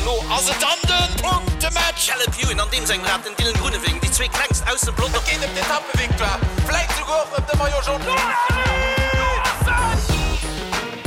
An elo ass et dann de Punktematch! Caleb Ewan an deem sengem Rad, den Dylan Groenewegen, déi zwee klengst aus dem Pelotong. Et geet ëm d'Etappevictoire, vläit souguer och ëm de Maillot Jaune.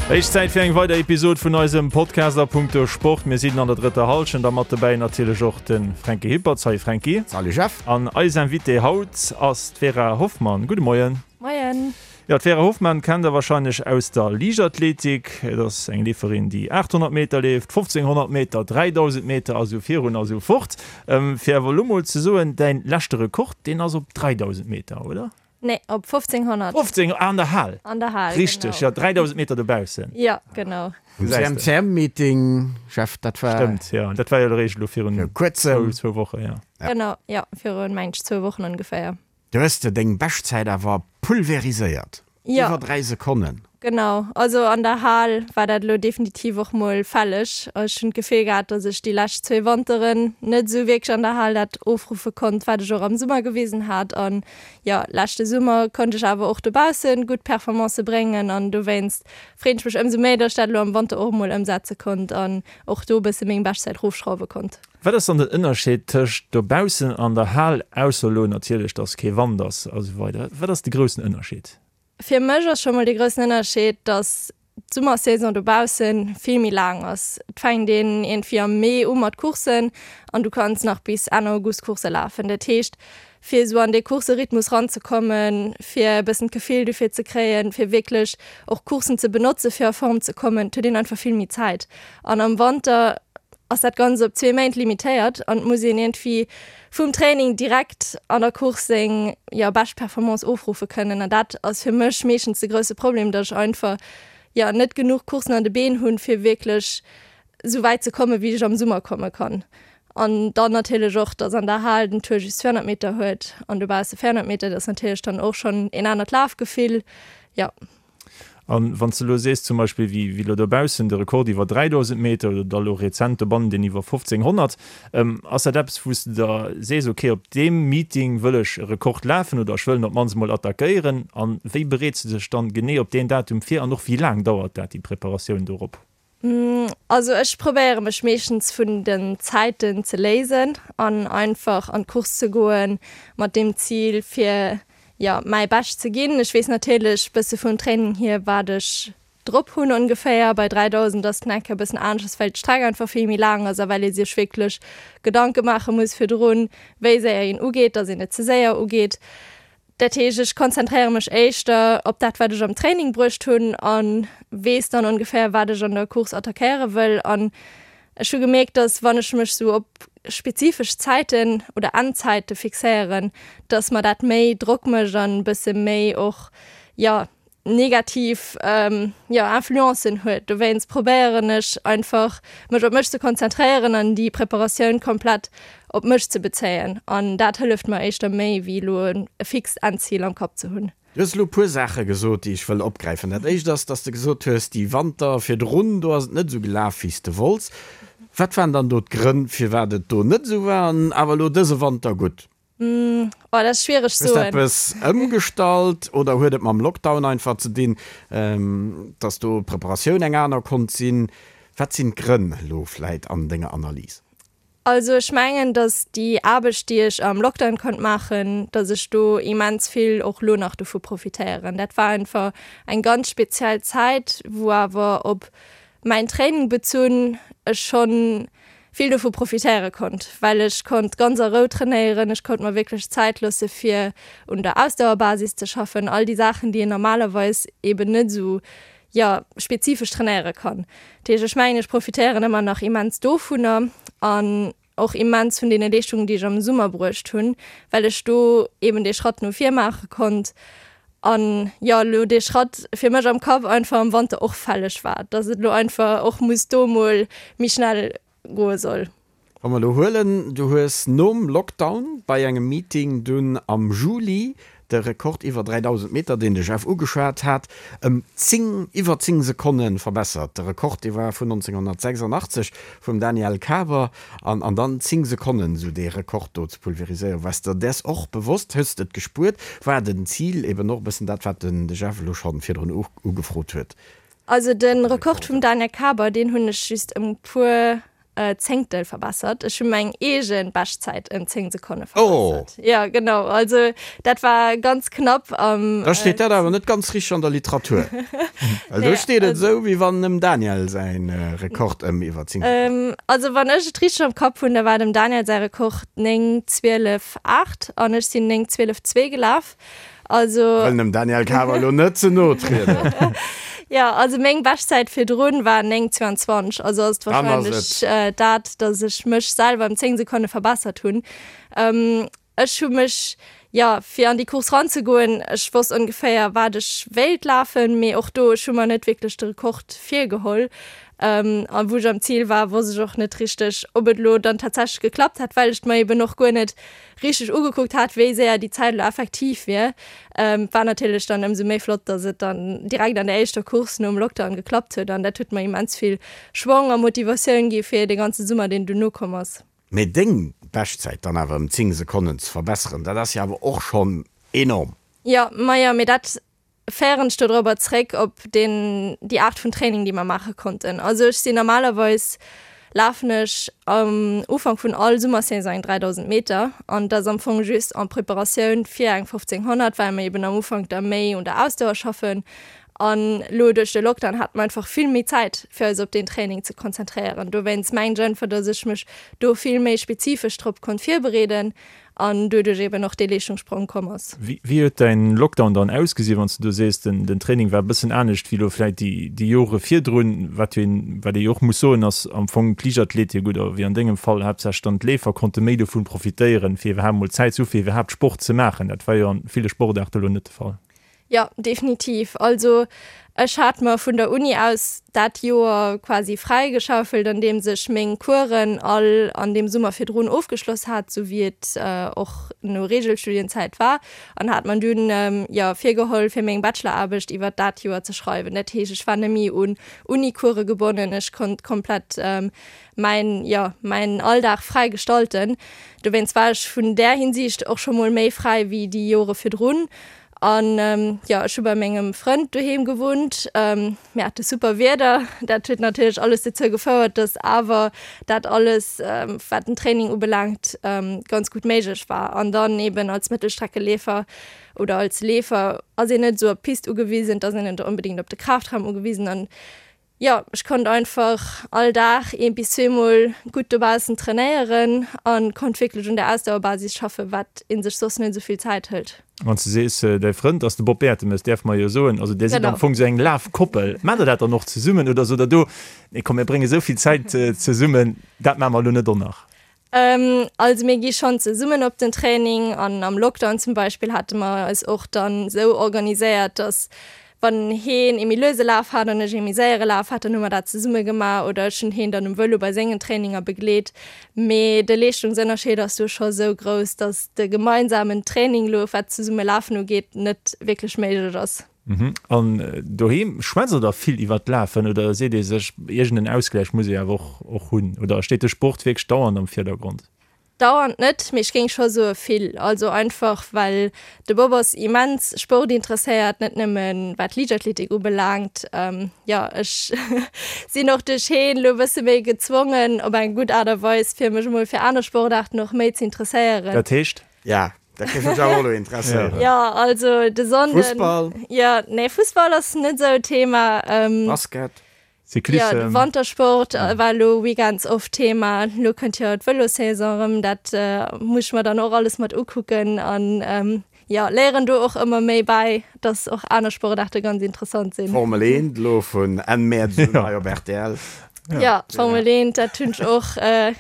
Héich Zäit fir eng weider Episod vun eisem Podcast a punkto Sport. Mir sinn an der drëtter Hallschent a mat dobäi natierlech och de Fränki Hippertz. Salut Fränki. Salut Jeff. An eis Invitée haut ass d'Vera Hoffmann. Gudde Moien. Moien. Jo, d'Vera Hoffmann kennt der warscheinlech aus der Liichtathletik. Et ass eng Leeferin, déi 800 Meter leeft, 1500 Meter, 3000 Meter a sou virun a sou fort. Fir awer elo mol ze soen, däin leschte Rekord, deen ass op 3000 Meter, oder? Nee, op 1500. 15, ah, an der Hal. An der Hal, genau. Richteg, jo, 3000 Meter dobaussen. Jo, genau. Um CMCM-Meeting, Jeff, dat war. Stëmmt, jo, dat war jo eréischt elo virun zwou Wochen, jo. Genau, jo, virun, meng ech, zwou Wochen ongeféier. Du hues de deng Beschtzäit awer pulveriséiert, Jo. iwwer 3 Sekonnen. Genau, also an der Hal war dat elo definitiv och mol fälleg. Ech hunn d'Gefill gehat, dass ech déi lescht zwee Wanteren net esou wierklech an der Hal dat ofruffe konnt, wat ech och am Summer gewisen hat. An jo, leschte Summer konnt ech awer och dobausse gutt Performancë bréngen an dowéinst freet ech mech ëmsou méi, dass ech dat elo am Wanter och emol ëmsetze konnt an och do e bësse meng Beschtzäit rofschrauwe konnt. Wat ass dann den Ënnerscheed tëscht dobaussen an der Hal, ausser elo natierlech, dass kee Wand ass a sou weider? Wat ass de groussen Ënnerscheed? Fir mech ass scho mol de groussen Ënnerscheed, dass d'Summersaison dobausse vill méi laang ass. Et fänkt een iergendwéi am Mee u mat Courssen an du kanns nach bis Enn August Coursse lafen. Dat heescht, fir esou an dee Courserhythmus ranzekommen, fir e bëssen d'Gefill dofir ze kréien, fir wierklech och Courssen ze benotze fir a Form ze kommen, et huet een einfach vill méi Zäit. An am Wanter ass dat Ganzt op zwee Méint limitéiert an et muss een iergendwéi vum Training direkt an der Course seng, jo, bescht Performance ofruffe kënnen. An dat ass fir mech meeschtens de grousse Problem, datt ech einfach, jo, net genuch Courssen an de Been hunn, fir wierklech esou wäit ze kommen, wéi ech am Summer komme kann. An dann natierlech och, datt an der Hal den Tour just 200 Meter huet an dobausse 400 Meter, dat ass natierlech dann och schonn een anert Lafgefill, jo. An wann s de elo sees zum Beispill, wéi elo dobaussen de Rekord iwwer 3.000 Meter oder da elo rezent dobannen deen iwwer 1.500, ass dat eppes, wou s de der sees, ok, op deem Meeting wëll ech e Rekord lafen oder ech wëll en op d'mannst emol attackéieren? An wéi bereets de dech dann genee op deen Datum vir an och wéi laang dauert dat, déi Preparatioun dorop? Also ech probéiere mech meeschtens vun den Zäiten ze léisen an einfach an d'Course ze goen mat deem Zil fir jo mäi Bescht ze ginn. Ech weess natierlech bësse vum Training hier wat ech drop hunn ongeféier. Bei 3000 ass et nach eng Kéier e bëssen aneschters well d'Streck einfach vill méi laang ass a well ee sech wierklech Gedanke maache muss virdrun wéi séier een ugeet, dass een net ze séier ugeet. Dat heescht, ech konzentréiere mech éischter op dat, wat ech am Training bruecht hunn a weess dann ongeféier, wat ech an der Course attackéiere wëll. An ech hu gemierkt, dass wann ech mech sou op spezifesch Zäiten oder Endzäite fixéieren, dass mer dat méi Drock mécht an e bësse méi och, jo, negativ jo Influencen huet. Dowéinst probéieren ech einfach mech op mech ze konzentréieren an déi Preparatioun komplett op mech ze bezéien an dat hëlleft mer éischter méi wéi elo e fixt Endzil am Kapp ze hunn. Du hues elo e puer Saache gesot, déi ech wëll opgräifen. Dat éischt ass, dass de gesot hues, déi Wanter virdrun, do ass et net esou gelaf, wéi s de wollts. Wat waren dann do d'Grënn, firwat et do net esou war an awer elo dëse Wanter gutt? Oh, dat ass schwiereg Hues de soen. eppes ëmgestallt oder huet et mam Lockdown einfach ze dinn, dass do d'Preparatioun eng aner konnt sinn? Wat sinn d'Grënn elo vläit an denger Analys? Also ech mengen, dass déi Aarbecht, déi ech am Lockdown konnt maachen, dass ech do immens vill och elo nach dovu profitéieren. Dat war einfach eng ganz speziell Zäit, wou awer op mäin Training bezunn ech schonn vill dovu profitéiere konnt, well ech konnt ganz a Rou trainéieren, ech konnt mer wierklech Zäit loosse fir un der Ausdauerbasis ze schaffen, all déi Saachen, déi een normalerweis eben net esou, jo, spezifesch trainéiere kann. Dat heescht, ech mengen, ech profitéieren ëmmer nach immens dovunner an och immens vun deene Leeschtungen, déi ech am Summer bruecht hunn, well ech do eben dee Schratt no vir maache konnt an, jo, elo dee Schratt fir mech am Kapp einfach am Wanter och fälleg war, dass et elo einfach och muss do mol méi schnell goe soll. Wa mer elo huelen, du hues nom Lockdown bei engem Meeting dunn am Juli de Rekord iwwer 3.000 Meter, deen de Jeff ugeschwat hat, ëm 10, iwwer 10 Sekonne verbessert. De Rekord, dee war vun 1986 vum Daniel Kaber. An, an dann 10 Sekonnen esou dee Rekord do ze pulveriséieren, waars der däers och bewosst? Hues de et gespuert? War den Zil eben och e bëssen dat, wat den de Jeff elo schonn virdrun ugefrot huet? Also de Rekord vum Daniel Kaber, deen hunn ech just ëm e puer. Zéngtel verbessert. Ech hu meng eege Beschtzäit ëm 10 Sekonne verbessert. Oh! Jo, genau. Also dat war ganz knapp am. Da steet dat awer net ganz richteg an der Literatur. Well do steet et esou, wéi wann dem Daniel säin Rekord ëm iwwer 10 Sekonnen. Also wann ech et richteg am Kapp hunn, da war dem Daniel säi Rekord 9, 12, 8 an ech sinn 9, 12, 2 gelaf. Also. Wëllen dem Daniel Kaber elo net ze no trieden. Jo, also meng Beschtzäit virdrun war 9,22, also ass et wahrscheinlech dat, datt ech mech selwer ëm 10 Sekonne verbessert hunn. Ech hu mech, jo, fir an déi Course ranzegoen, ech wosst ongeféier wat ech wéilt lafen, mee och do, ech hu mer net wierklech de Rekord virgeholl. A wou ech am Zil war, wosst ech och net richteg, ob et elo dann tatsächlech geklappt hätt, well ech et mer eben och guer net richteg ugekuckt hat, wéi séier déi Zäit elo effektiv wier. War natierlech dann ëmsou méi flott, dass et dann direkt an der éischter Course nom Lockdown geklappt huet an dat huet mer immens vill Schwong a Motivatioun gi fir de ganze Summer, deen duerno komm ass. Mee deng Beschtzäit dann awer ëm 10 Sekonnen ze verbesseren, dat ass jo awer och schonn enorm. Jo, majo, mee dat féieren ech dodrobber zréck op deen, déi Aart vun Training, déi mer maache konnten. Also ech sinn normalerweis, lafen ech am Ufank vun all Summersaison eng 3000 Meter an dat ass am Fong just en Preparatioun fir eng 1500, well mer eben am Ufank da méi un der Ausdauer schaffen. An elo duerch de Lockdown hate mer einfach vill méi Zäit fir eis op deen Training ze konzentréieren. Dowéinst mengen ech einfach, datt ech mech do vill méi spezifesch drop konnt virbereeden an doduerch eben och dee Leeschtungssprong komm ass. Wéi huet däin Lockdown dann ausgesinn, wann s de do sees, den Training war e bëssen anescht wéi elo vläit déi Jore virdrun? Wat jo een, wat ee jo och muss soen, ass am Fong d'Liichtathletik oder wéi an dengem Fall haaptsächlech dann d'Leefer konnte méi dovun profitéieren, fir iwwerhaapt mol Zäit ze hu fir iwwerhaapt Sport ze maachen. Dat war jo an ville Sportaarte elo net de Fall. Jo, definitiv. Also ech hat mer vun der Uni aus dat Joer quasi fräigeschaufelt, andeems ech meng Coursen all an deem Summer virdrun ofgeschloss hat, sou wéi et och no Regelstudienzäit war, an hat mer dunn, jo, virgeholl, fir meng Bacheloraarbecht iwwert dat Joer ze schreiwen. Dat heescht, ech war net méi un Uni-Course gebonnen, ech konnt komplett mäin, jo, mäin Alldag fräi gestalten. Dowéinst war ech vun där Hinsicht och scho mol méi fräi wéi déi Jore virdrun. An jo, ech hu bei mengem Frënd doheem gewunnt. Mir hate super Wieder. Dat huet natierlech alles dozou gefouert, dass awer dat alles, wat den Training ubelaangt, ganz gutt méiglech war. An dann eben als Mëttelstreckeleefer oder als Leefer ass een net esou op d'Pist ugewisen, et ass een net onbedéngt op de Kraftraum ugewisen. An Jo, ech konnt einfach all Dag een bis zweemol gutt dobaussen trainéieren an konnt wierklech un der Ausdauerbasis schaffen, wat een sech soss net esou vill Zäit hëlt. Wann s de sees, däi Frënd ass de Bob Bertemes, däerfe mer jo soen, also där sidd am Fong esou eng Lafkoppel. Maacht der dat dann och zesummen oder sot der do, nee komm mir brénge sou vill Zäit zesummen, dat maache mer elo net och nach? Also mir gi schonn zesummen op den Training an am Lockdown zum Beispill hate mer eis och dann esou organiséiert, dass wann heen ee méi luese Laf hat an ech ee méi séiere Laf hat, dann hu mer dat zesumme gemaach oder ech hunn heen dann um Vëlo bei sengen Traininger begleet. Mee de Leeschtungsënnerscheed ass do scho sou grouss, dass de gemeinsamen Training elo wat zesumme lafen ugeet net wierklech méiglech ass. An doheem, schwätzt der da vill iwwert d'Lafen oder seet ee sech, iergend en Ausgläich muss ee awer och och hunn? Oder steet de Sport wierklech dauernd am Virdergrond? Dauernd net, mee ech géing scho soe vill. Also einfach well de Bob ass immens sportinteresséiert, net nëmme wat Liichtathletik ubelaangt. Jo, ech sinn och duerch heen elo e bësse méi gezwongen, op eng gutt Aart a Weis, fir mech emol fir aner Sportaarten och méi ze interesséieren. Dat heescht? Ja, dat géif mech awer och elo interesséieren. Jo, also de Sonnden. Fussball? Jo, nee, Fussball ass net esou Thema. Basket? Cyclissem? Jo, de Wantersport war elo weekends oft Thema. Elo kënnt jo d'Vëlossaison erëm, dat muss ech mer dann och alles mat ukucken an jo, léieren do och ëmmer méi bäi, dass och aner Sportaarte ganz interessant sinn. Formel 1 elo vun Enn Mäerz un hei op rtl. Jo, Formel 1, dat hunn ech och,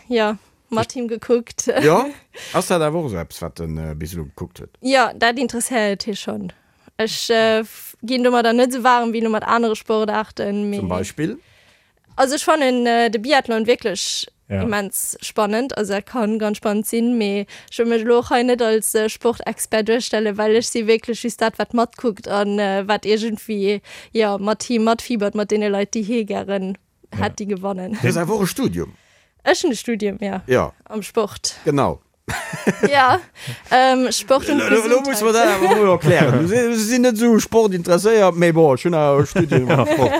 jo. Mat him gekuckt. Jo, ass dat awer och esou eppes, wat en bis elo gekuckt huet? Jo, dat interesséiert hie schonn. Ech ginn domadder net esou waarem wéi elo mat anere Sportaarten, mee. Zum Beispill? Also ech fannen de Biathlon wierklech immens spannend. Also dat kann ganz spannend sinn, mee ech wëll mech elo och hei net als Sportexpert duerstellen, well ech si wierklech just dat, wat matkuckt an wat iergendwéi, jo, mat him matfiebert, mat deene Leit, déi hie gären hätt déi gewannen. Du hues awer och e Studium? Ech hunn e Studium, jo. Jo. Am Sport. Genau. Jo, Sport und Gesundheit. Elo muss mer dat awer emol erklären. Du sinn net esou Sport interesséiert, mee bon, ech hunn awer e Studium am Sport.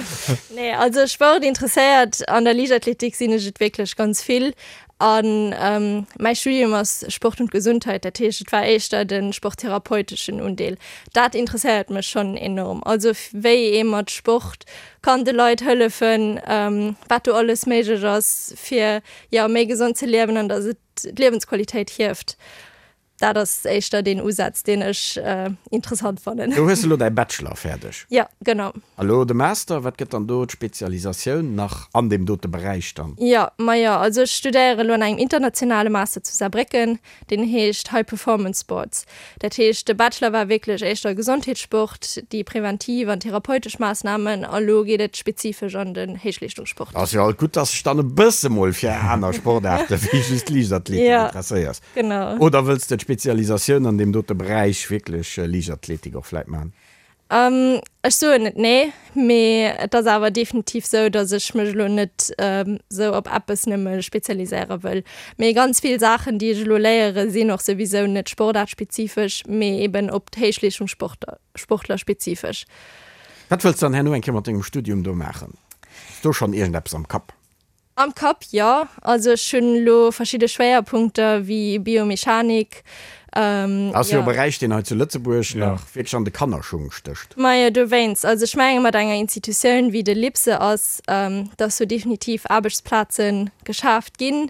Nee, also Sport interesséiert an der Liichtathletik sinn ech et wierklech ganz vill. An mäi Studium ass Sport und Gesundheit, dat heescht et war éischter de sporttherapeuteschen Undeel. Dat interesséiert mech schonn enorm. Also wéi ee mat Sport kann de Leit hëllefen, wat do alles méiglech ass fir jo méi gesond ze liewen an datt et d'Liewensqualitéit hieft. Dat ass éischter deen Usaz, deen ech interessant fannen. Do hues de elo däi Bachelor fäerdeg? Jo, genau. A lo de Master, wat gëtt dann do d'Spezialisatioun nach an deem dote Beräich dann? Jo, majo, also ech studéiere elo an engem internationale Master zu Saarbrécken, deen heescht High Performance Sports. Dat heescht, de Bachelor war wierklech éischter Gesondheetssport, déi preventiv an therapeutesch Maassnamen, a lo geet et spezifesch an den Héichleeschtungssport. Ass jo alt gutt, dass de dech dann e bësse mol fir aner Sportaarte wéi just Liichtathletik interesséiers. Genau. Oder wëlls de d'Spezialisatioun an deem dote Beräich wierklech Liichtathletik och vläit maachen? Ech soen net nee, mee et ass awer definitiv sou, datt ech mech elo net sou op eppes nëmme spezialiséiere wëll. Mee ganz vill Saachen, déi ech elo léiere sinn och souwisou net sportaartspezifesch, mee eben op d'Héichleeschtungssportler, Sportler spezifesch. Wat wëlls de dann herno eng Kéier mat dengem Studium do maachen? Hues do schonn iergendeppes am Kapp? Am Kapp, jo. Also ech hunn elo verschidde Schwéierpunkter wéi Biomechanik. Ass jo e Beräich, deen hei zu Lëtzebuerg nach wierklech an de Kannerschung stécht. Majo, dowéinst. Also ech menge mat enger Institutioun wéi de LIPSE ass, dass do definitiv Aarbechtsplaze geschaaft ginn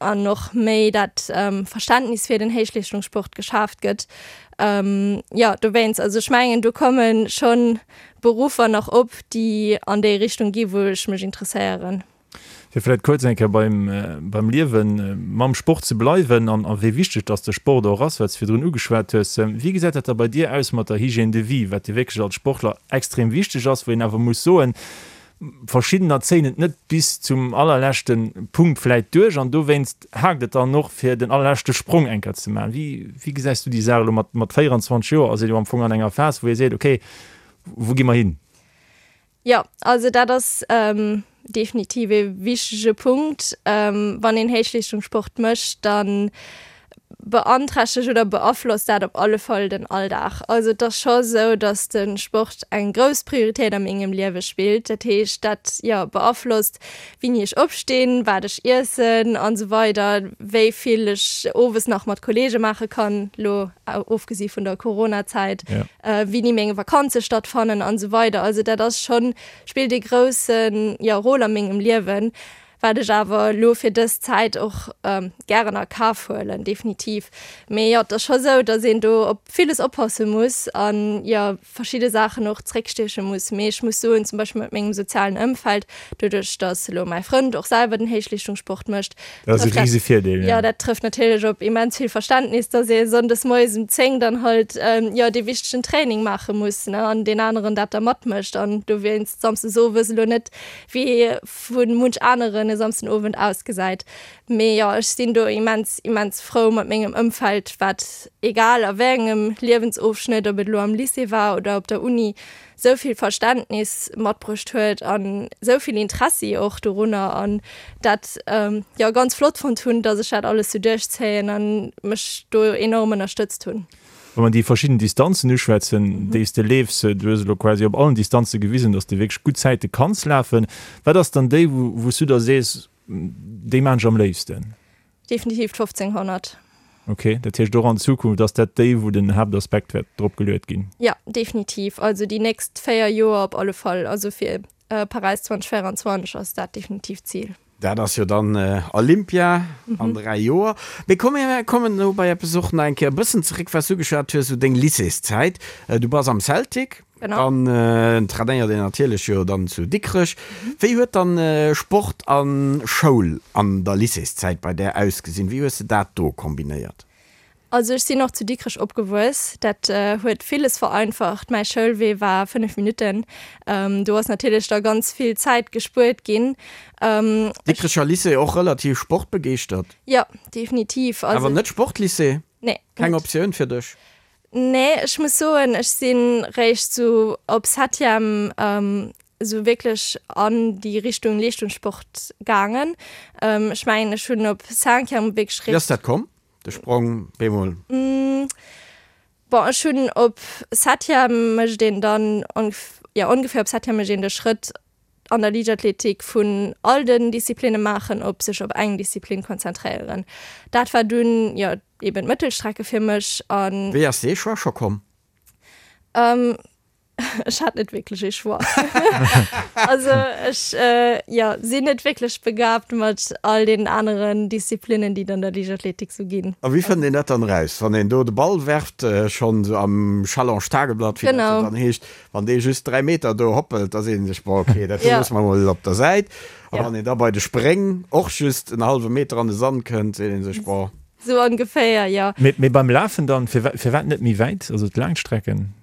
an och méi dat Verständnis fir den Héichleeschtungssport geschaaft gëtt. Jo, dowéinst. Also ech mengen, do komme schonn Beruffer nach op, déi an déi Richtung gi wou ech mech interesséieren. Fir vläit kuerz eng Kéier beim, beim Liewen mam Sport ze bleiwen an a wéi wichteg dass de Sport och ass, wat s de virdrun ugeschwat hues. Wéi gesäit dat da bei dir aus mat der Hygiène de vie, wat jo wierklech als Sportler extrem wichteg ass, wou een awer muss soen, Verschiddener zéien et net bis zum allerleschte Punkt vläit duerch an dowéinst haakt et dann och fir den allerleschte Sprong eng Kéier ze maachen. Wéi, wéi gesäis du déi Saach elo mat, mat 24 Joer ass een jo am Fong an enger Phas, wou ee seet, okay, wou gi mer hin? Jo, also dat ass definitiv ee wichtege Punkt. Wann een Héichleeschtungssport mécht, dann beanträchtegt oder beaflosst dat op alle Fall den Alldag. Also et ass scho sou, datt de Sport eng grouss Prioritéit a mengem Liewe spillt. Dat heescht, dat, jo, beaflosst wéini ech opstinn, wat ech iessen an esou weider, wéi vill ech owes nach mat Kolleege maache kann, lo ofgesi vun der Coronazäit, wéini meng Vakanze stattfannen an esou weider. Also dat ass schonn, spillt ee grousse, jo, Rôle a mengem Liewen. Wat ech awer elo fir dës Zäit och gären a Kaf huelen, definitiv. Mee jo, et ass scho sou, datt een do op villes oppasse muss an jo verschidde Saachen och zréckstieche muss. Mee ech muss soen, zum Beispill mat mengem sozialen Ëmfeld, doduerch datt elo mäi Frënd och selwer den Héichleeschtungssport mécht, Dat ass e trëfft dat, rise Virdeel, jo, jo. dat trëfft natierlech op immens vill Verständnis, datt ee sonndes moies um 10 dann halt jo dee wichtegen Training maache muss, ne, an deen aneren dat da matmécht an dowéinst samsdes owes elo net wéi vu munch aneren e Samsden Owend ausgesäit. Mee jo, ech sinn do immens, immens frou mat mengem Ëmfeld, wat egal a wéi engem Liewensofschnëtt, ob et elo am Lycée war oder op der Uni, sou vill Verständnis matbruecht huet an sou vill Interessi och dorunner an dat jo ganz flott fonnt hunn, dass ech dat alles sou duerchzéien an mech do enorm ënnerstëtzt hunn. Wa mer déi verschidden Distanzen uschwätzen, déi s de leefs, du hues elo quasi op allen Distanze gewisen, dass de wierklech gutt Zäite kanns lafen. Wat ass dann déi, wou s du da sees, déi maan ech am léifsten? Definitiv d'1500. Ok, dat heescht och an Zukunft ass dat déi, wou den Haaptaspekt wäert drop geluet ginn? Jo, definitiv. Also déi nächst 4 Joer op alle Fall. Also fir Paräis 2024 ass dat definitiv d'Zil. Dat ass jo dann Olympia an 3 Joer. Mee komm mir kommen elo bei eppes och nach eng Kéier e bëssen zeréck, wat s du ugeschwat hues, esou deng Lycéeszäit. Du bass am Celtic, dann trainéiert een natierlech jo dann zu Dikrech. Wéi huet dann Sport a Schoul an der Lycéeszäit bei där ausgesinn? Wéi hues de dat do kombinéiert? Also ech sinn och zu Dikrech opgewuess. Dat huet villes vereinfacht. Mäi Schoulwee war 5 Minutten. Do ass natierlech da ganz vill Zäit gespuert ginn. Dikrecher Lycée och relativ sportbegeeschtert? Jo, definitiv. Awer net Sportlycée? Nee. Keng Optioun fir dech? Nee, ech muss soen, ech si réischt sou op Septième esou wierklech an déi Richtung Leeschtungssport gaangen. Ech mengen, ech hunn op Cinquième wierklech Wéi ass dat komm? De Sprong bemol? Bon, ech hunn op Septième mécht een dann, jo ongeféier op Septième mécht een de Schrëtt an der Liichtathletik vun all den Disziplinne maachen op sech op eng Disziplin konzentréieren. Dat war dunn jo eben d'Mëttelstrecke fir mech an. Wéi ass dee Choix scho komm? Ech hat net wierklech ee Choix. Also ech jo sinn net wierklech begabt mat all deenen aneren Disziplinnen, déi et an der Liichtathletik sou ginn. A wéi fënnt een dat dann eraus, wann een do de Ball werft, schonn sou am Challenge Tageblatt, wéi dat jo dann heescht, wann dee just 3 Meter do hoppelt, da seet ee sech, bon ok, dat do loosse mer mol op der Säit. A wann een da bei de Spréng och just en hallwe Meter an de Sand kënnt, seet ee sech, bon. Sou ongeféier, jo. Mee beim Lafen dann, firwat net méi wäit, also d'Laangstrecken?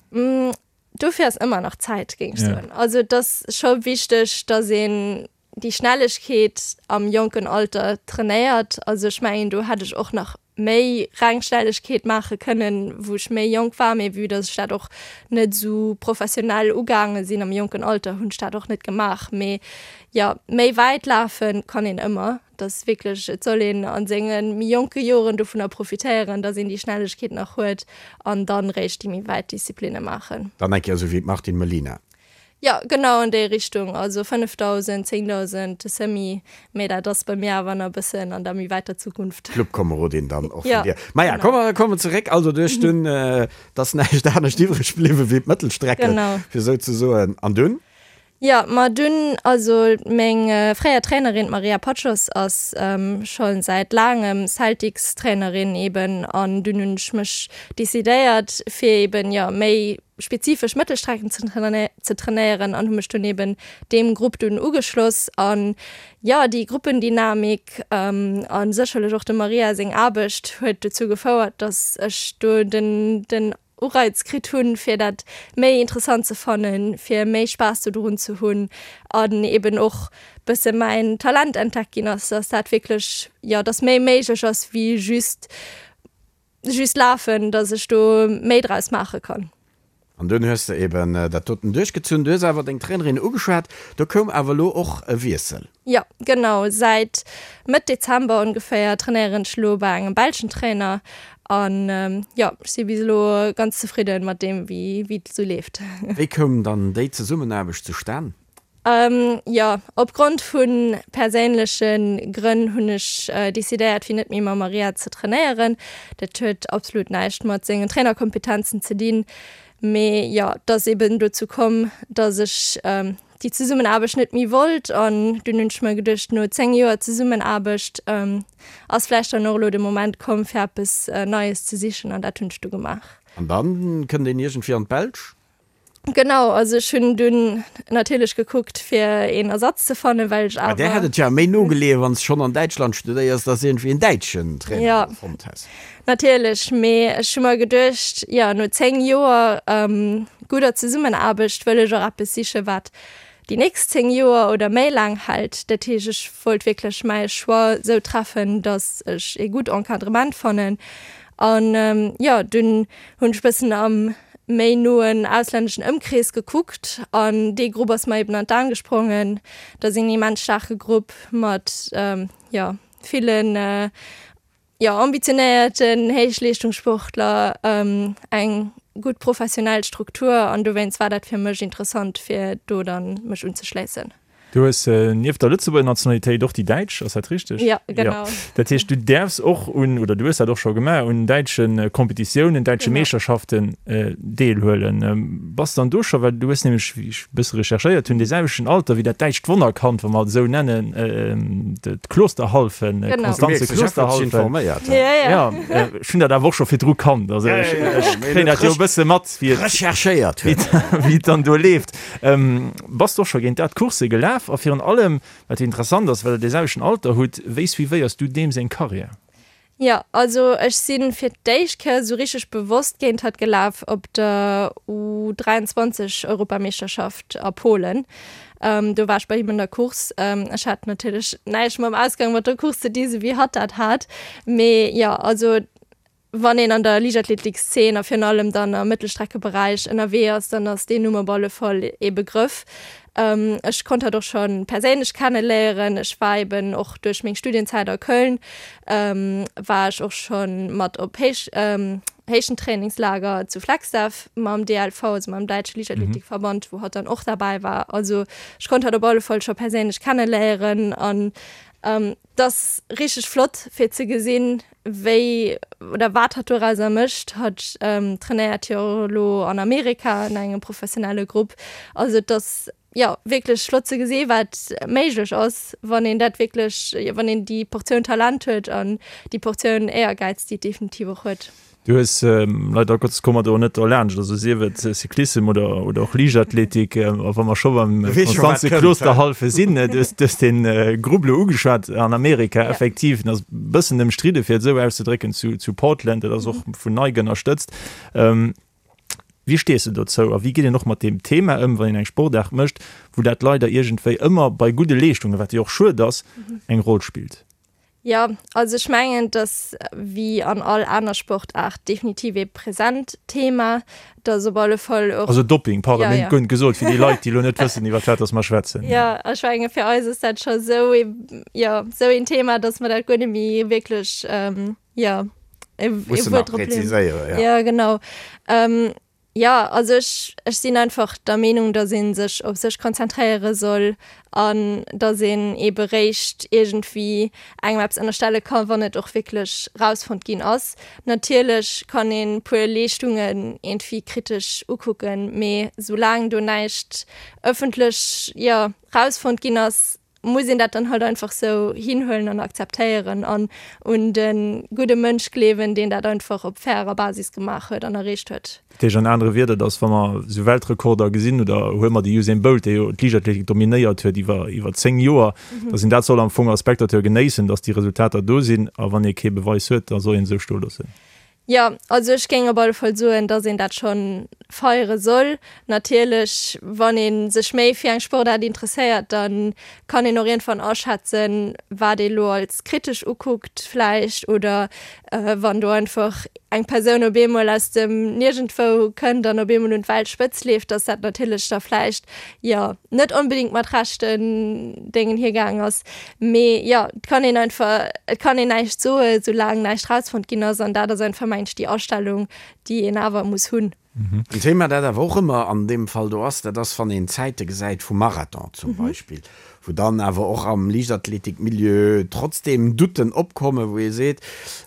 Dofir ass ëmmer nach Zäit, géing ech soen. Also et ass scho wichteg, datt een déi Schnellegkeet am jonken Alter trainéiert. Also ech mengen, do hätt ech och nach méi reng Schnellegkeet maache kënnen, wou ech méi jonk war. Mee vue datt ech dat och net esou professionell ugaange sinn am jonken Alter, hunn ech dat och net gemaach. Mee jo, méi wäit lafe kann een ëmmer. Dass wierklech, et soll een a senge méi jonke Joren dovunner profitéieren, dass een déi Schnellegkeet nach huet an dann réischt déi méi wäit Disziplinne maachen. Dann eng Kéier esou wéi d'Martine Melina. Jo, genau an déi Richtung, also 5.000, 10.000, de Semi, mee dat ass bei mir awer nach e bëssen an der méi wäiter Zukunft. Clubkomerodin dann och vun dir. Maja, komme mer kommen zeréck, also du hues dunn, et ass näischt anescht iwwreg bliwwen wéi d'Mëttelstrecke, fir esou ze soen, an dunn? Jo, ma dunn, also meng fréier Trainerin, d'Maria Paczos, ass scho säit laangem Celtics-Trainerin eben an dunn hunn ech mech decidéiert fir eben, jo, méi spezifesch Mëttelstrecken ze trainéieren an hu mech dunn eben deem Grupp dunn ugeschloss an, jo, déi Gruppendynamik a sécherlech och dem Maria seng Aarbecht huet dozou gefouert, dass ech do den den Ureiz kritt hunn, fir dat méi interessant ze fannen, fir méi Spaass dodrun ze hunn an eben och bësse mäin Talent entdeckt ginn ass, dass dat wierklech, jo, dass méi méiglech ass wéi just just lafen, dass ech do méi draus maache kann. An dunn hues de eben dat doten duerchgezunn. Du hues awer deng Trainerin ugeschwat, do koum awer elo och e Wiessel. Jo, genau. Säit Mëtt Dezember ongeféier trainéieren ech elo bei engem belschen Trainer an jo, ech si bis elo ganz zefridden mat deem wéi wéi et esou leeft. Wéi koum dann déi Zesummenaarbecht zustan? Jo, opgrond vu perséinleche Grënn hunn ech decidéiert fir net méi mam Maria ze trainéieren. Dat huet absolut näischt mat sengen Trainerkompetenzen ze dinn, mee jo, et ass eben dozou komm, dass ech déi Zesummenaarbecht net méi wollt an dunn hunn ech mer geduecht, no 10 Joer Zesummenaarbecht ass vläicht dann och elo de Moment komm fir eppes Neies ze sichen an dat hunn ech du gemaach. An dann kënnt een iergendwéi an d'Belsch? Genau, also ech hunn dunn natierlech gekuckt fir een Ersatz ze fannen, well ech awer. Bei där hätt et jo méi no geleeën, wann s de schonn an Däitschland studéiers, dass iergendwéi een däitschen Trainer fonnt häss. Natierlech, mee ech hu mer geduecht, jo, no 10 Joer gudder Zesummenaarbecht wëll ech och eppes sichen, wat déi nächst 10 Joer oder méi laang hält. Dat heescht, ech wollt wierklech mäi Choix esou treffen, datt ech ee gutt Encadrement fannen. An jo, dunn hunn ech bëssen am méi noen auslänneschen Ëmkrees gekuckt an dee Grupp ass mer eben an d'Aen gesprongen. Dat ass een immens staarke Grupp mat, jo, villen jo, ambitionéierten Héichleeschtungssportler, eng gutt professionell Struktur an dowéinst war dat fir mech interessant, fir do dann mech unzeschléissen. Du hues nieft der Lëtzebuerger Nationalitéit och déi däitsch, ass dat richteg? Jo, genau. Dat heescht, du däerfs och un, oder du hues dat och scho gemaach, un däitsche Kompetitiounen, däitsche Meeschterschaften deelhuelen. Bass dann do scho, well du hues nämlech, wéi ech e bësse recherchéiert hunn, dee selwechten Alter wéi dat däitscht Wonnerkand, wa mer et esou nennen, d'Klosterhalfen, d'Konstanze Klosterhalfen. Jo, ech hunn dat awer och scho virdru kannt, also ech kréien dat jo e bësse mat, wéi et, Recherchéiert huet. Wéi et dann do leeft. Bass de och scho géint dat Coursse gelaf? A virun allem, wat jo interessant ass, well der dee selwechten Alter hutt, wéi suivéiers du deem seng Karriär? Jo, also ech si fir d'éischt Kéier esou richteg bewosst géint hatt gelaf op der U 23 Europameeschterschaft a Polen. Do war ech bei him an der Course. Ech hat natierlech näischt mam Ausgang mat der Course ze di, sou wéi hatt dat hat. Mee jo, also. Wann een an der Liichtathletikszeen a virun allem dann am Mëttelstreckeberäich ënnerwee ass, dann ass deen Numm op alle Fall ee Begrëff. Ech konnt hatt och scho perséinlech kenneléieren. Ech war eben och duerch meng Studienzäit a Köln, war ech och scho mat op Héich Héichentrainingslager zu Flagstaff mam DLV, also mam däitsche Liichtathletikverband, wou hatt dann och derbäi war. Also ech konnt hatt op alle Fall scho perséinlech kenneléieren an 't ass richteg flott fir ze gesinn, wéi oder wat hatt dorauser mécht. Hatt trainéiert jo och elo an Amerika an engem professionelle Grupp. Also et ass jo wierklech flott ze gesi wat méiglech ass, wann een dat wierklech, jo wann een déi Portioun Talent huet an déi Portioun Éiergäiz, déi et definitiv och huet. Du hues, leider Gottes komme mer do net derlaanscht, also sief et Cyclissem oder, oder och Liichtathletik, a wa mer scho beim Konstanze Klosterhalfe sinn, du hues, du hues de Grupp elo ugeschwat an Amerika, effektiv, en ass e bëssen ëmstridde fir et esou auszedrécken, zu, zu Portland, dat ass och vun Nike ënnerstëtzt. Wéi stees de dozou a wéi geet een och mat deem Thema ëm, wann een eng Sportaart mécht, wou dat leider iergendwéi ëmmer bei gudde Leeschtungen, wat jo och schued ass, eng Roll spillt? Jo, also ech mengen, et ass wéi an all aner Sportaart definitiv ee present Thema. Et ass op alle Fall och. Also Dopping, pardon, mir hunn guer net gesot, fir déi Leit, déi elo net wëssen, iwwer wat dass mer schwätzen. Jo, ech menge fir eis ass dat scho esou ee, jo, esou een Thema, dass mer dat guer net méi wierklech, jo, ee Wuert drop leeën. Jo, genau. Jo, also ech, ech sinn einfach der Meenung, datt ee sech op sech konzentréiere soll an datt een eebe réischt iergendwéi engem eppes ënnerstelle ka wann et och wierklech rausfonnt ginn ass. Natierlech kann een puer Leeschtungen iergendwéi kritesch ukucken, mee soulaang do näischt ëffentlech, jo, rausfonnt ginn ass, muss een dat dann halt einfach sou hinhuelen an akzeptéieren an un de gudde Mënsch gleewen, deen dat einfach op fairer Basis gemaach huet an erreecht huet. Dat heescht an anere Wierder, datt wa mer esou Weltrekorder gesinn, oder huele mer de Usain Bolt, dee jo d'Liichtathletik dominéiert huet iwwer iwwer 10 Joer, datt een dat soll am Fong als Spectateur genéissen, datt déi Resultater do sinn, a wann ee kee Beweis huet, da soll een esou stoe loossen. Jo, also ech géing op alle Fall soen, dass een dat scho feiere soll. Natierlech, wann ee sech méi fir eng Sportaart interesséiert, da kann een och iergendwann aschätzen, wat ee lo als kritesch ukuckt vläicht oder wann do einfach eng Persoun op eemol aus dem Niergendwou kënnt an op eemol un d'Weltspëtz leeft, dass dat natierlech da vläicht, jo, net onbedéngt mat rechten Déngen hiergaang ass. Mee jo, et kann een einfach, et kann een näischt soen, soulaang näischt rausfonnt ginn ass. An dat ass einfach, mengen ech, déi Astellung, déi een awer muss hunn. En Thema, dat awer och ëmmer an deem Fall do ass, dat ass, wann een Zäite gesäit vum Marathon zum Beispill, wou dann awer och am Liichtathletikmilieu trotzdeem Doutten opkommen, wou ee seet,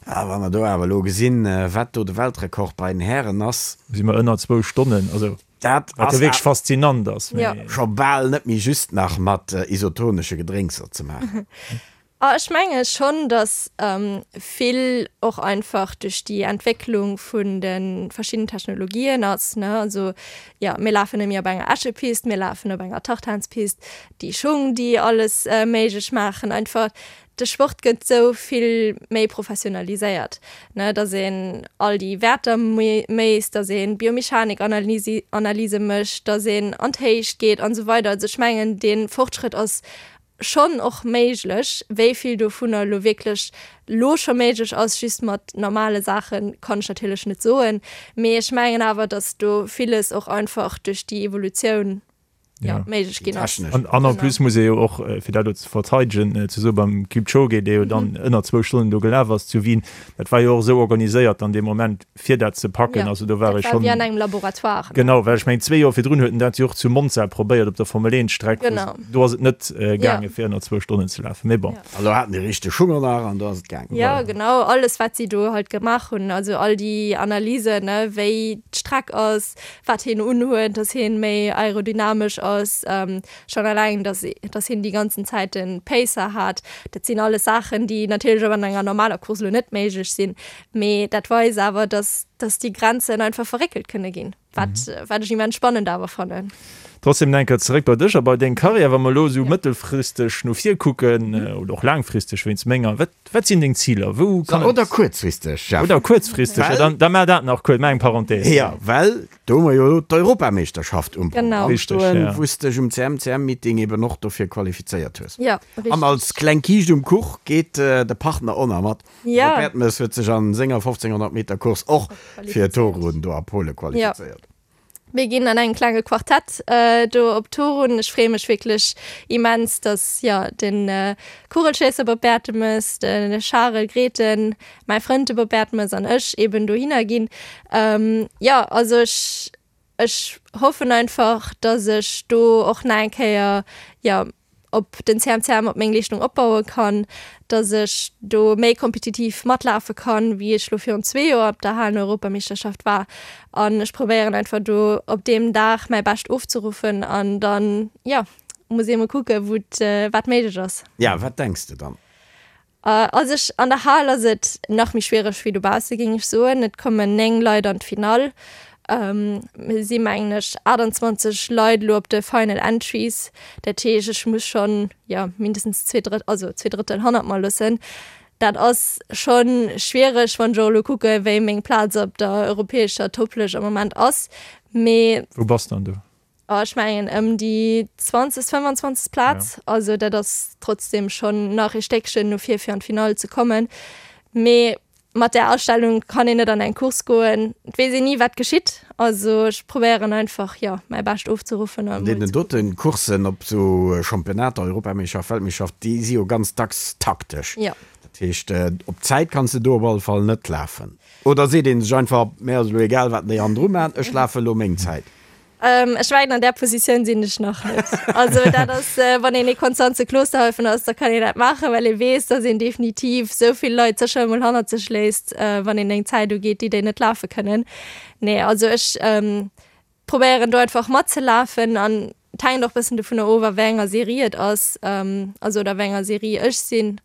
ah, wa mer do awer elo gesinn, wat do de Weltrekord bei den Hären ass. Si mer ënner zwou Stonnen. Also Dat Wat ass jo wierklech faszinant ass. Ja. Scho bal net méi just nach mat isotonesche Gedrénkser ze maachen. A ech menge schonn, datt vill och einfach duerch déi Entwécklung vun de verschiddenen Technologien ass, ne. Also jo, mir lafen net méi op enger Äschepist, mir lafen op enger Tartanspist, déi Schung, déi alles méiglech maachen einfach. De Sport gëtt sou vill méi professionaliséiert, ne, dass een all déi Wäerter méisst, dass ee Biomechanik-Analyse mécht, dass een an d'Héicht geet an esou weider. Also ech mengen, dee Fortschrëtt ass schonn och méiglech. Wéi vill dovunner elo wierklech elo scho méiglech ass, just mat normale Saachen, kann ech natierlech net soen. Mee ech mengen awer, dass do villes och einfach duerch déi Evolutioun ja, méiglech ginn ass. An, an en plus muss ee jo och, fir dat elo ze verteidegen, ze soen, beim Kipchoge, dee jo dann ënner zwou Stonnen do gelaf ass zu Wien, dat war jo och esou organiséiert an deem Moment, fir dat ze packen. Ja, Also do war dat ee war schonn. wéi an engem Laboratoire, ne? Genau, well ech mengen, zwee Joer virdrun huet en dat jo och zu Monza probéiert op der Formel-Eent-Streck, wou Genau. do ass et net Ja. gaange fir ënner zwou Stonnen ze lafen. Mee bon. Ja. An do haten déi richteg Hunger nach an do ass et gaangen. Ja, genau, alles wat si do halt gemaach hunn, also all déi Analysen, ne, wéi d'Streck ass, wat hien unhuet, dass hien méi aerodynamesch ass, schonn eleng dass dass hien déi ganzen Zäit den Pacer hat, dat sinn alles Saachen, déi natierlech och an enger normaler Course elo net méiglech sinn, mee dat weist awer, dass. Dass déi Grenzen einfach verréckelt kënne ginn, wat, wat ech immens spannend awer fannen. Trotzdem nach eng Kéier zeréck bei dech a bei deng Karriär. Wa mer elo esou mëttelfristeg no vir kucken, oder och laangfristeg wéinst menger, wat, wat sinn deng Ziler? Wou kann et. Oder kuerzfristeg, Jeff. Oder kuerzfristeg, jo, dann, da maach dat nach kuerz, maach eng Parenthèse. Jo, well do hu mer jo elo d'Europameeschterschaft um Programm stoen, wou s dech um CMCM-Meeting eben och dofir qualifizéiert hues. Jo, richteg. An als kleng Kiischt um Kuch geet de Partner och nach mat. Ja. De Bertmes huet sech an senger 1500 Meter Course och fir Torun do a Pole qualifizéiert. Ja. Mir ginn an engem klenge Quartett do op Torun. Ech freeë mech wierklech immens, dass jo de Kugelschéisser Bob Bertemes, de Charel Grethen, mäi Frënd de Bob Bertemes an ech eben dohinner ginn. Jo, also ech Ech hoffen einfach, dass ech do och nach eng Kéier, jo, op den CMCM op meng Leeschtung opbaue kann, dass ech do méi kompetitiv matlafe kann, wéi ech lo virun zwee Joer op der Halen-Europameeschterschaft war. An ech probéieren einfach do op deem Dag mäi Bescht ofzeruffen an dann, jo, muss ee mol kucke wou et, wat méiglech ass. Ja, wat denks de dann? Also ech, an der Hal ass et nach méi schwiereg wéi dobausse géing ech soen. Et kommen 9 Leit an d'Finall. Mir si mengen ech 28 Leit elo op de Final Entries. Dat heescht ech muss schonn, jo, mindestens zwee Drëtt, also zwee Drëttel hannert mer loossen. Dat ass schonn schwiereg, wann ech och elo kucke wéi meng Plaz op der europäescher Topplëscht am Moment ass. Mee. Wou bass dann du? Oh, ech mengen ëm déi 20., 25. Plaz. Ja. Also dat ass trotzdem schonn nach ee Stéckchen no vir fir an d'Finall ze kommen. Mee mat där Astellung kann een net an eng Course goen. Et weess een ni wat geschitt. Also ech probéieren einfach, jo, mäi Bescht ofzeruffen a An mol deenen ze kucken. dote Courssen op esou Championnater, Europameeschterschaft, Weltmeeschterschaft, déi si jo ganz dacks taktesch. Jo. Dat heescht, op d'Zäit kanns de do op alle Fall net lafen. Oder seet ee sech einfach, Mir ass elo egal wat déi hannendru maachen, ech lafe elo meng Zäit. Ech mengen an där Positioun sinn ech nach net. Also dat ass, wann een ee Konstanze Klosterhalfen ass, da kann een dat maachen, well ee weess, datt een definitiv esou vill Leit sécher emol hannert sech léisst, wann een eng Zäit ugeet, déi déi net lafe kënnen. Nee, also ech probéieren do einfach matzelafen an et hänkt och bëssen dovunner of, a wéi enger Serie et ass, also oder wéi enger Serie ech sinn,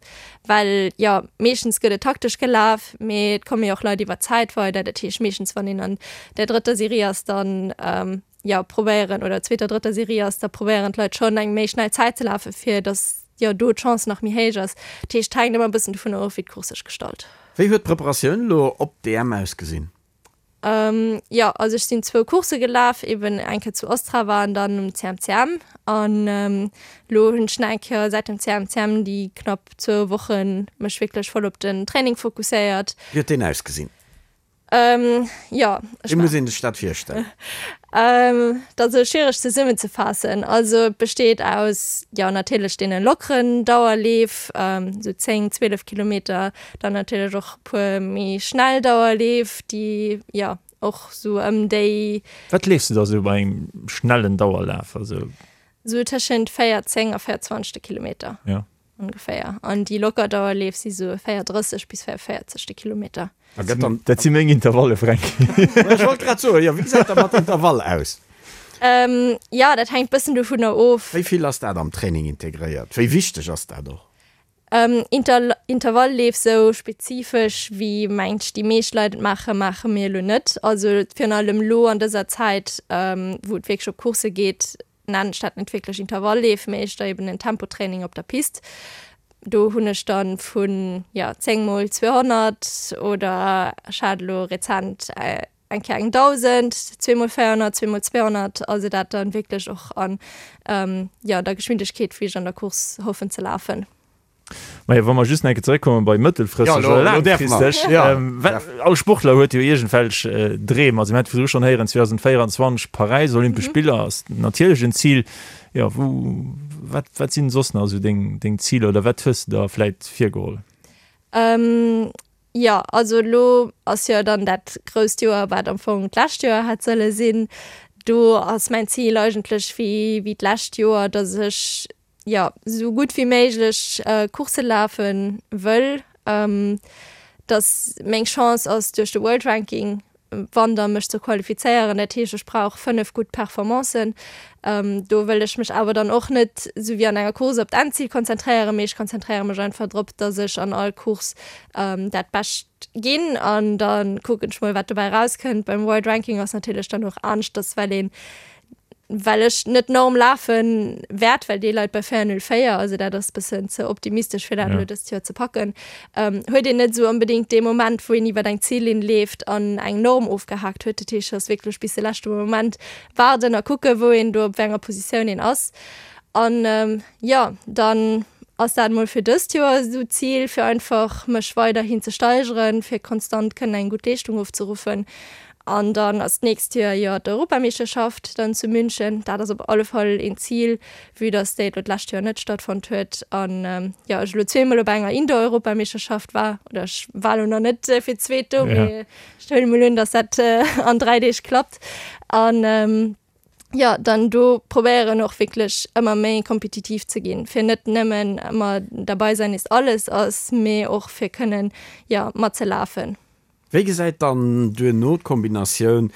well jo meeschtens gëtt et taktesch gelaf, mee et komme jo och Leit iwwer d'Zäit weider. Dat heescht meeschtens wann een an der drëtter Serie ass, dann jo probéieren, oder zweeter, drëtter Serie ass, da probéieren d'Leit schonn eng méi schnell Zäit ze lafen, fir datt jo do d'Chance nach méi héich ass. Dat heescht et hänkt ëmmer e bëssen dovunner of, wéi d'Course sech gestalt. Wéi huet d'Preparatioun elo op d'EM ausgesinn? Jo, also ech sinn zwou Coursse gelaf, eben eng Kéier zu Ostrava an dann um CMCM. An elo hunn ech nach eng Kéier säit dem CMCM déi knapp zwou Woche mech wierklech voll op den Training fokusséiert. Wéi huet deen ausgesinn? Jo, ech Wéi muss een sech dat virstellen? Dat ass elo schwiereg zesummenzefaassen. Also et besteet aus, jo natierlech deene lockeren Dauerleef, esou 10, 12 Kilometer, dann natierlech och e puer méi schnell Dauerleef, déi jo och esou ëm déi. Wat leefs de da sou bei engem schnellen Dauerlaf? Also. Esou tëschent 4,10 a 4,20 de Kilometer. Ja. Ongeféier. An déi locker Dauerleef si sou 4,30 bis 4,40 de Kilometer. A gëtt dann. Dat si meng Intervalle, Fränki. Ech wollt grad soen, jo, wéi gesäit dat mat Intervall aus? Jo, dat hänkt bëssen dovunner of. Wéi vill ass dat am Training integréiert? Wéi wichteg ass dat och? Intervallleef sou spezifesch wéi mengt ech déi meescht Leit et maachen, maache mir elo net. Also virun allem elo an dëser Zäit, wou et wierklech op Coursse geet, nennen ech dat net wierklech Intervallleef, mee éischter eben en Tempotraining op der Pist. Do hunn ech dann vun, jo, 10 mol 200 oder ech hat elo rezent eng Kéier eng 1.000, zweemol 400, zweemol 200, also dat dann wierklech och an, jo, der Geschwindegkeet, wéi ech an der Course hoffen ze lafen. Majo, wa mer just nach eng Kéier zeréckkomme bei mëttelfristeg oder laangfristeg, all Sportler huet jo iergendwelch Dreem. Also mir hate virdru schonn héieren, 2024 Paräis, Olympesch Spiller ass natierlech en Zil. Jo, wou, wat, wat sinn soss nach esou deng, deng Ziler oder wat hues de der vläit virgeholl? Jo, also elo ass jo dann dat grousst Joer, wat am Fong d'lescht Joer hätt solle sinn. Do ass mäin Zil eigentlech wéi, wéi d'lescht Joer, datt ech jo, sou gutt wéi méiglech Coursse lafe wëll, dass meng Chance ass duerch de World Ranking. Wanter mech ze qualifizéieren. Dat heescht, ech brauch 5 gutt Performancen. Do wëll ech mech awer dann och net esou wéi an enger Course op d'Endzil konzentréieren, mee ech konzentréiere mech einfach drop, dass ech an all Course dat Bescht ginn an da kucken ech mol, wat dobäi erauskënnt. Beim World Ranking ass natierlech dann och aneschters, well een well ech net d'Norm lafe wäert, well déi leit bei 4,04, also dat ass bëssen ze optimistesch fir dat elo dëst Joer ze packen, huet een net esou onbedéngt dee Moment, wou een iwwer eng Zillinn leeft an eng Norm ofgehaakt huet. Dat heescht, et ass wierklech bis de leschte Moment waarden a kucken, wou een do op wéi enger Positioun een ass. An jo, dann ass dat mol fir dëst Joer esou d'Zil, fir einfach mech weiderhin ze steigeren, fir konstant kënnen eng gutt Leeschtung ofzeruffen. An dann ass d'nächst Joer jo d'Europameeschterschaft dann zu München. Dat ass op alle Fall een Zil, vue dass déi elo d'lescht Joer net stattfonnt huet an jo ech elo zweemol op enger Indoor-Europameeschterschaft war. Oder ech war elo nach net fir d'zweet do, mee ech huele mol un, dass dat an 3 Deeg klappt. An jo, dann do probéieren och wierklech ëmmer méi kompetitiv ze ginn, fir net nëmmen ëmmer dabei sein ist alles ass, mee och fir kënnen jo matzelafen. Wéi gesäit dann duerno d'Kombinatioun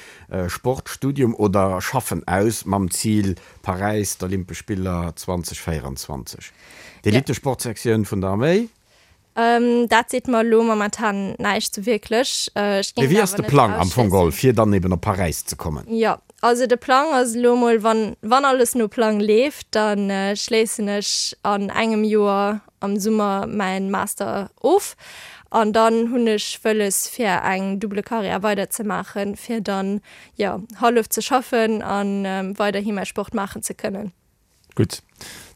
Sport, Studium oder Schaffen aus, mam Zil Paräis, d'Olympesch Spiller 2024? D'Elitesportsektioun vun der Arméi? Dat seet mer elo momentan näischt sou wierklech. Ech Mee géing wéi et ass awer de net Plang am Fong geholl, ausschléissen. fir dann eben op Paräis ze kommen? Jo, also de Plang ass elo mol, wann, wann alles no Plang leeft, da schléissen ech an engem Joer am Summer mäin Master of an dann hunn ech wëlles fir eng double Carrière weider ze maachen, fir dann jo hallef ze schaffen an weiderhi mäi Sport maachen ze kënnen. Gutt,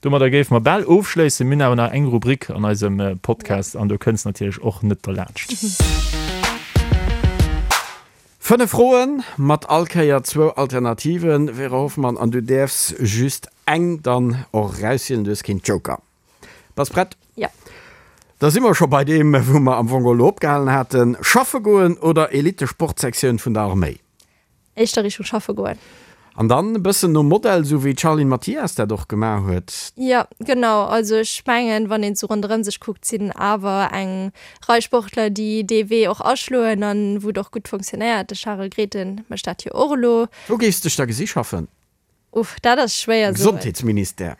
domadder géife mer bal ofschléissen. Mir hunn awer nach eng Rubrik an eisem Podcast an do kënns natierlech och net derlaanscht. 5 Froen mat all Kéier zwou Alternativen, Vera Hoffmann, an du däerfs just eng dann och erauswielen, du hues keen Joker. Bass prett? Ja. Da si mer scho bei deem, wou mer am Fong elo opgehalen haten, Schaffe goen oder Elite-Sportsektioun vun der Arméi? Éischter Richtung schaffe goen. An dann e bëssen nom Modell, esou wéi d'Charline Mathias dat och gemaach huet. Jo, genau. Also ech mengen, wann een esou ronderëm sech kuckt, sinn awer eng Rei Sportler, déi dee Wee och aschloen an wou et och gutt funktionéiert. De Charel Grethen mécht dat jo och elo. Wou géifs dech da gesi schaffen? Uff, dat ass schwéier soen. Gesondheetsministère.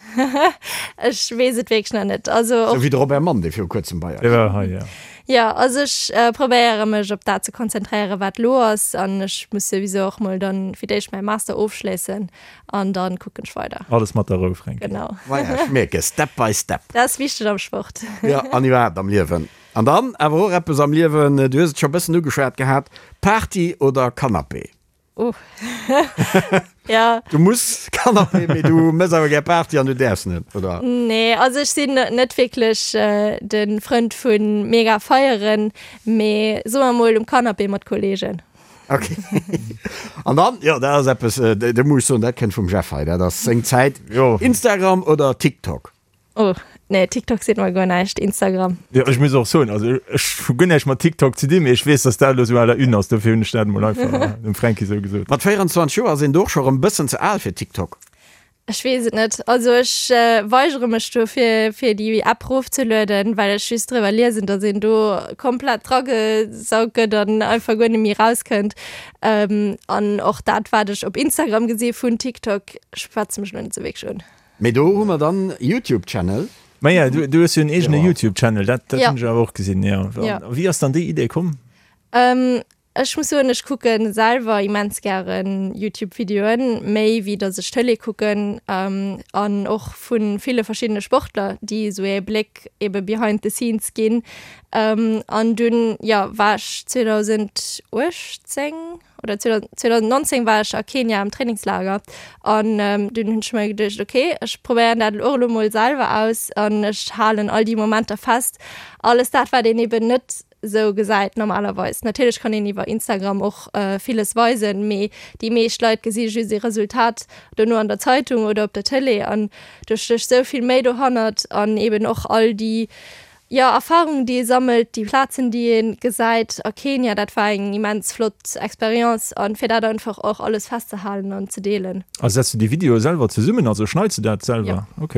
Ech weess et wierklech nach net. Also och. Sou wéi de Robert Mann, dee viru kuerzem bei eis Dee war hei, jo. Jo, also ech probéiere mech op dat ze konzentréieren, wat elo ass. An ech muss souwisou och mol dann fir d'éischt mäi Master ofschléissen an dann kucken ech weider. Alles mat der Rou, Fränki. Genau. Voilà, ech mierke, step by step. Dat ass wichteg am Sport. Jo, an iwwerhaapt am Liewen. An dann awer och eppes am Liewen, du hues et scho e bëssen ugeschwat gehat, Party oder Canapé? Oh. ja. Du muss Canapé, mee du mëss awer gär Party an du däerfs net, oder? Nee, also ech sinn net wierklech äh, de Frënd vu mega feieren, mee soe mer mol um Canapé mat Kollegen. Okay. An dann, jo, dat ass eppes, äh, do muss ech soen, dat kënnt vum Jeff hei, dat ass seng Zäit. Jo. Instagram oder TikTok? Oh, nee, TikTok seet mer guer näischt, Instagram. Jo, ech muss och soen, also ech hu guer näischt mat TikTok ze dinn, mee ech weess, dass dat elo sou à la une ass, dofir hunn ech dat emol einfach dem Fränki sou gesot. Mat 24 Joer ass een do och scho rëm bëssen ze al fir TikTok. Ech weess et net. Also ech weigere mech do fir, fir déi App rofzelueden, well ech just driwwer liesen, dass een do komplett dragesaugt gëtt an einfach guer net méi rauskënnt. An och dat, wat ech op Instagram gesi vun TikTok, schwätzt mech elo net sou wierklech un. Mee do hu mer dann Youtube Channel. Maja, du, du hues jo en eegene Youtube Channel, dat, dat hunn ech awer och gesinn, jo. Ja. Wéi ass dann déi Idee komm? Ähm, ech muss soen, ech kucke selwer immens gären Youtube Videoen, méi wéi datt ech Tëlee kucken, an och vu ville verschiddene Sportler, déi esou ee Bléck ebe behind the scenes ginn. An dunn, jo, war ech 2018, oder 2019 war ech a Kenia am Trainingslager an dunn hunn ech mer geduecht, okay, ech probéieren dat och elo mol selwer aus an ech halen all déi Momenter fest, alles dat wat een eben net sou gesäit normalerweis. Natierlech kann een iwwer Instagram och villes weisen, mee déi meescht Leit gesi just ee Resultat dono an der Zeitung oder op der Tëlee an do stécht sou vill méi dohannert an eben och all déi Jo, Erfahrungen déi ee sammelt, déi Plazen déi ee gesäit a Kenia, dat war eng immens flott Experience an fir dat einfach och alles festzehalen an ze deelen. A setz du déi Videoe selwer zesummen, also schneits du dat selwer? Jo. Ok.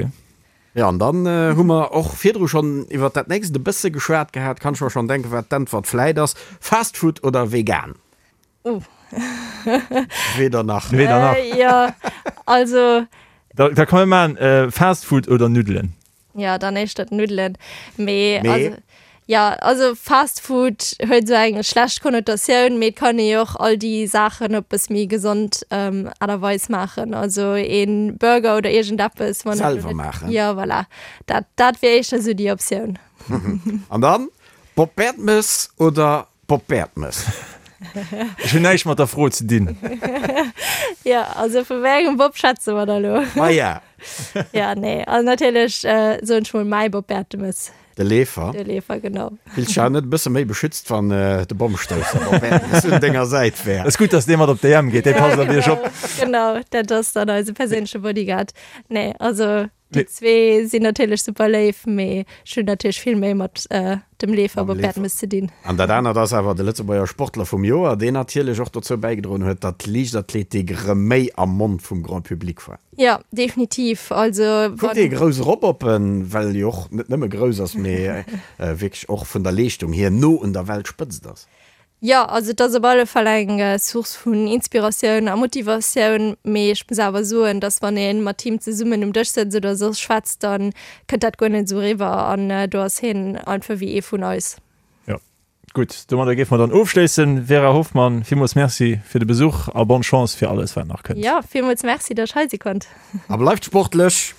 Jo, an dann hu mer och virdru schonn iwwert dat nächst e bësse geschwat gehat. Kann ech mer schonn denken, wat d'Äntwert vläit ass. Fast Food oder vegan? Oh. Weder nach. Weder nach. Jo, also. Da, da kann mir maachen, Fast Food oder Nuddelen? Jo, dann éischter d'Nuddelen. Mee, Mee? also, ja, also Fast Food huet esou eng schlecht Konnotatioun, mee et kann ee jo och all déi Saachen op bësse méi gesond Aart a Weis maachen. Also een Burger oder iergendeppes, wann et elo Selwer net, maachen. jo, voilà, dat, dat wier éischter esou déi Optioun. An dann, Bob Bertemes oder Bob Bertemes. Ech hunn näischt mat der Fro ze dinn. Jo, also vu wéi engem Bob schwätze mer da lo? Maja. Ja, nee, also natierlech soen ech mol mäi Bob Bertemes. De Leefer. De Leefer, genau. Fills dech awer net e bësse méi beschützt, wann de Bommstousser Bob Bertemes un denger Säit wär? Ass gutt, dass dee mat op d'EM geet, dee passt op iech op. Genau, dat ass dann eise perséinleche Bodyguard. Nee, also Déi zwee sinn natierlech super léif, mee ech hunn natierlech vill méi mat dem Leefer Bob Bertemes ze dinn. An dat anert ass awer de Lëtzebuerger Sportler vum Joer, deen natierlech och dozou bäigedroen huet, datt d'Liichtathletik erëm méi am Mond vum Grand Public war. Jo, definitiv. Also Kuckt ee grouss erop op en, well e jo och net nëmme grouss ass, mee wierklech och vun der Leeschtung hier no un der Weltspëtzt ass. Jo, also et ass op alle Fall eng Source vun Inspiratioun a Motivatioun, mee ech muss awer soen, dass wann ee mat him zesummen um Dësch sëtzt oder soss schwätzt, da kënnt dat guer net esou eriwwer an do ass hien einfach wéi ee vun eis. Jo, gutt, domadder géife mer dann ofschléissen. Vera Hoffmann, villmools Merci fir de Besuch a bonne Chance fir alles wat nach kënnt. Jo, villmools Merci, dass ech hei si konnt. A bleift sportlech!